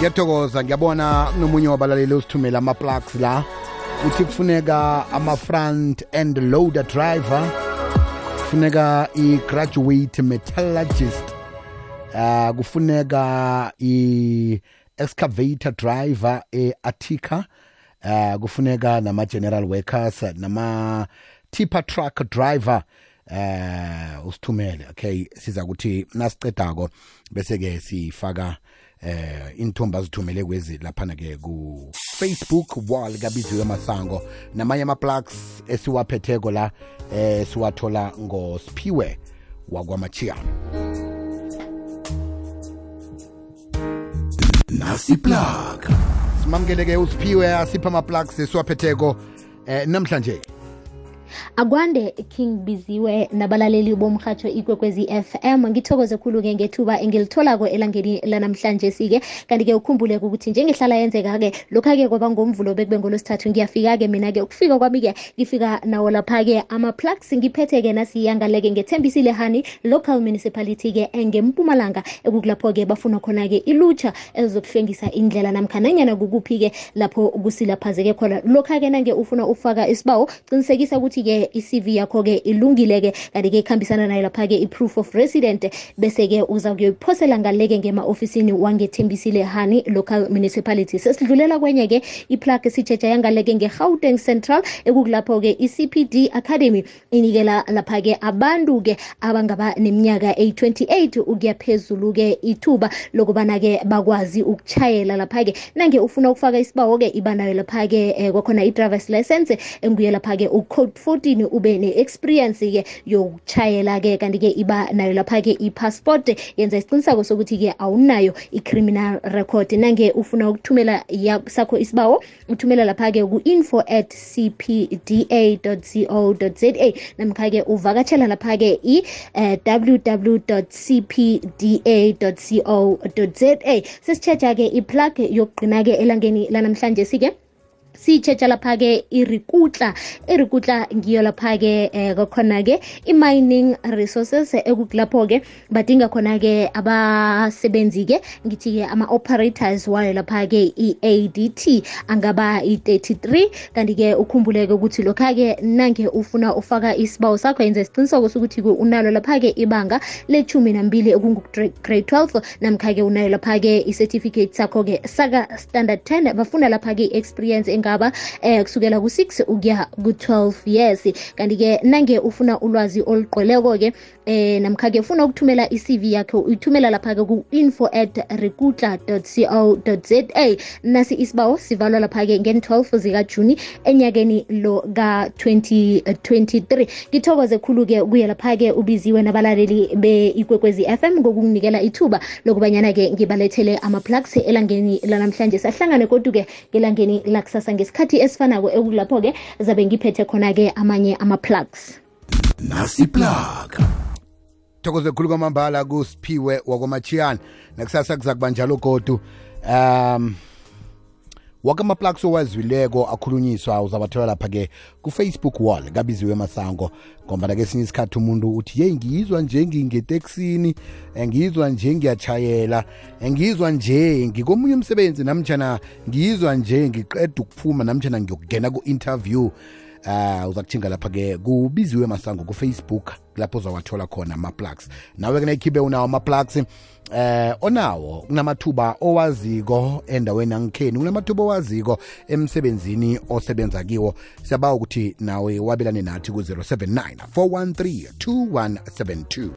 Ngiyathokoza ngiyabona nomunye wabalaleli usithumela ama-plugs la uthi kufuneka ama-front end loader driver, kufuneka i-graduate metallurgist, kufuneka i-excavator driver e-Attica, kufuneka nama-general workers, nama-tipper truck driver, usithumele. Okay, siza kuthi nasicedako bese-ke sifaka inthomba azithumele kwezi laphana ke ku Facebook wall kaBiziwe Masango, namanye ama-plugs esiwaphetheko la siwathola ngoSiphiwe wakwaMachiyana. Nasi plug simamkele ke uSiphiwe asipha ama-plugs esiwaphetheko namhlanje. Akwande King Biziwe nabalaleli bomhatsho Ikwekwezi FM, ngithokoze khulu ke ngethuba engilitholako elangeni lanamhlanje sike. Kanti ke ukhumbule ukuthi njengehlala yenzeka ke lokha ke kwaba ngomvulo bekube ngolosithathu ngiyafika ke mina ke ukufika kwami ke ngifika nawo lapha ke ama-plugs ngiphethe ke nasiyangaleke ngethembisile hani local municipality ke engeMpumalanga ekukulapho ke bafuna khona ke ilutsha ezokuhlengisa indlela namkhananyana kukuphi ke lapho kusilaphazeke khona. Lokha ke nange ufuna ufaka isibawo qinisekisa ukuthi ke i-CV yakho ke ilungile ke kanti ke ikhambisana nayo lapha ke i-proof of resident, bese ke uza kuyophosela ngaleke ngema-ofisini wangethembisile hani local municipality. Sesidlulela kwenye ke i-plug sijeja yangaleke nge-Gauteng Central ekukulapho ke i-CPD Academy inikela lapha ke abantu ke abangaba neminyaka eyi-28 ukuya phezulu ke ithuba lokubana ke bakwazi ukuchayela lapha ke nange ufuna ukufaka isibawo ke ibanayo lapha ke kwakhona i-driver's license enguye lapha ke u-code 14 ube ne-experience ke yokuchayela ke kanti ke iba nayo lapha ke i-passport yenza isiqiniseko sokuthi ke awunayo i-criminal record. Nange ufuna ukuthumela sakho isibawo uthumela lapha ke ku info@cpda.co.za namkha ke uvakatshela lapha ke www.cpda.co.za. sesichecha ke i-plug yokugcina ke elangeni lanamhlanje sike sichecha lapha ke irikutla ngiyo lapha ke khona ke i-mining resources ekukulapho ke badinga khona ke abasebenzi ke ngithi ke ama-operators wayo lapha ke i-ADT angaba i-33. kanti ke ukhumbuleke ukuthi lokha ke nange ufuna ufaka isibawo sakho yenza isiqiniseko sokuthi unalo lapha ke ibanga le-12 ekungu-grade 12 namkha ke unayo lapha ke i-certificate sakho ke saka standard 10. bafuna lapha ke experience ngaba kusukela ku6 ukuya ku12 years. kanti ke nange ufuna ulwazi oluqoleko ke namkha ke ufuna ukuthumela i-CV yakho uyithumela lapha ke ku info@rekutla.co.za. nasi isibawo sivalwa lapha ke nge-12 zikaJuni enyakeni lo ka-2023. ngithokoze khulu ke kuye lapha ke ubiziwe nabalaleli be-Ikwekwezi FM ngokunginikela ithuba lokubanyana ke ngibalethele ama-plugs elangeni lanamhlanje. sahlangane kodwa ke ngelangeni lakusasa ngesikhathi esifanako ekulapho ke zabe ngiphethe khona ke amanye ama-plugs. Nasi plug thokoze khulu kwamambala kuSiphiwe wakwaMachiyana. nakusasa kuza kuba njalo godu wake ama-plugs owazileko akhulunyiswa uzabathola lapha ke ku-Facebook wall kaBiziwe Masango. ngoba ke esinye isikhathi umuntu uthi ye ngizwa nje ngingeteksini, ngizwa nje ngiyachayela, ngizwa nje ngikomunye umsebenzi, namtjana ngizwa nje ngiqeda ukuphuma, namtjana ngiyokungena ku-interview. uza kuthinga lapha ke kuBiziwe Masango ku-Facebook, lapho uzawathola khona ama-plugs. nawe ke nayikhiphe unawo ama-plugs onawo, kunamathuba owaziko endaweni yangikheni, kunamathuba owaziko emsebenzini osebenza kiwo. siyabawa ukuthi nawe wabelane nathi ku-079 413 2172.